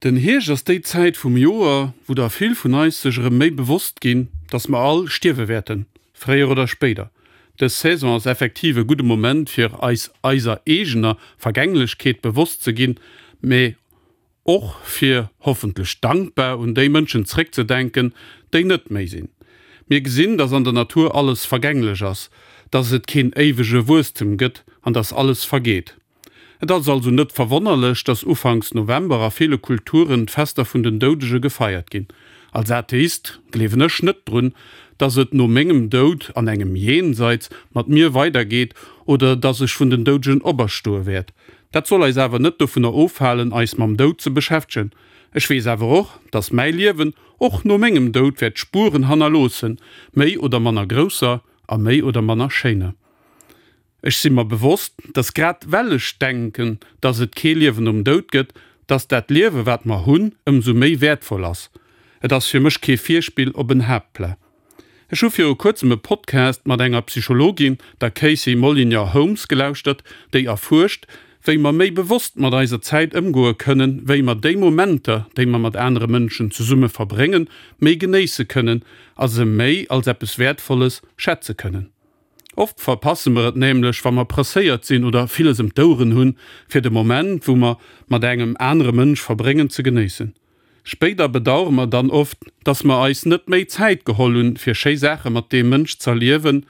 Den Hierscht ass déi Zäit vum Joer, wou der vill vun eis sech erëm méi bewosst ginn, dass mer all stierwe wäerten, fréier oder spéider. Dës Saison ass effektiv e gudde Moment fir eis eiser eegener Vergänglechkeet bewosst ze ginn, mee och fir, hoffentlech dankbar, un déi Mënschen zréckzedenken, déi net méi sinn. Mir gesinn, dass an der Natur alles vergänglech ass, dass et keen éiwege Wuesstem gëtt an dass alles vergeet. Et ass also net verwonnerlech, dass ufanks November a ville Kulturen d'Fester vun den Doudege gefeiert ginn. Als Atheist gleewen ech net drun, dass et no mengem Doud an engem Jenseits mat mir weidergeet oder dass ech vun den Doudegen operstoe wäert. Dat soll eis awer net dovunner ofhalen, eis mam Doud ze beschäftegen. Ech weess awer och, dass mäi Liewen och no mengem Doud wäert Spueren hannerloossen, méi oder manner grousser a méi oder manner schéiner. Ech si mer bewosst, dass grad well ech denken, dass et kee Liewen nom Doud gëtt, dass dat Liewe wat mer hunn, ëmsou méi wäertvoll ass. Et ass fir mech kee Virspill op en Haaptpla. Ech hu viru kuerzem e Podcast mat enger Psychologin, der Casey Molyneux Holmes, gelauschtert, déi erfuerscht, wéi mer méi bewosst mat eiser Zäit ëmgoe kënnen, wéi mer déi Momenter, déi mer mat anere Mënschen zesumme verbréngen, méi genéisse kënnen a se méi als eppes Wäertvolles schätze kënnen. Oft verpasse mer et nämlech, wa mer presséiert sinn oder villes ëm d'Oueren hunn, fir de Moment, wou mer mat engem anere Mënsch verbréngen, ze genéissen. Spéider bedauere mer dann oft, dass mer eis net méi Zäit geholl hunn, fir schéi Saache mat deem Mënsch z'erliewen.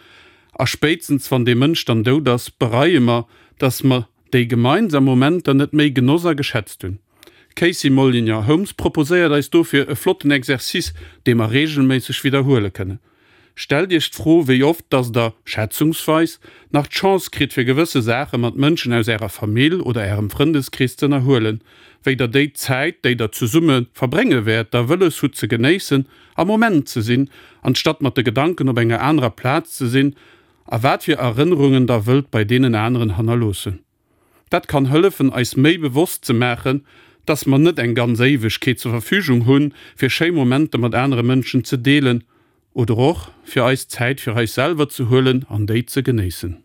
A spéitstens wann dee Mënsch dann dout ass, bereie mer, dass mer déi gemeinsam Momenter net méi genoss a geschätzt hunn. D'Casey Molyneux Holmes proposéiert eis dofir e flotten Exercice, dee mer reegelméisseg widderhuele kënnen. Stellt Iech d'Fro, wéi oft dass der, schätzungsweis, nach d'Chance kritt fir gewësse Saache mat Mënschen aus Ärer Famill oder Ärem Frëndeskrees z'ënnerhuelen, wéi der déi Zäit, déi der zesumme verbrénge wäert, da wëlles hutt ze genéissen, am Moment ze sinn, anstatt mat de Gedanken op enger anerer Plaz ze sinn, a wat fir Erënnerungen der wëllt bei deenen aneren hannerloossen. Dat kann hëllefen, eis méi bewosst ze maachen, dass mer net eng ganz Éiwegkeet zur Verfügung hunn, fir schéi Momenter mat anere Mënschen ze deelen oder och fir eis Zäit fir eis selwer ze huelen an déi ze genéissen.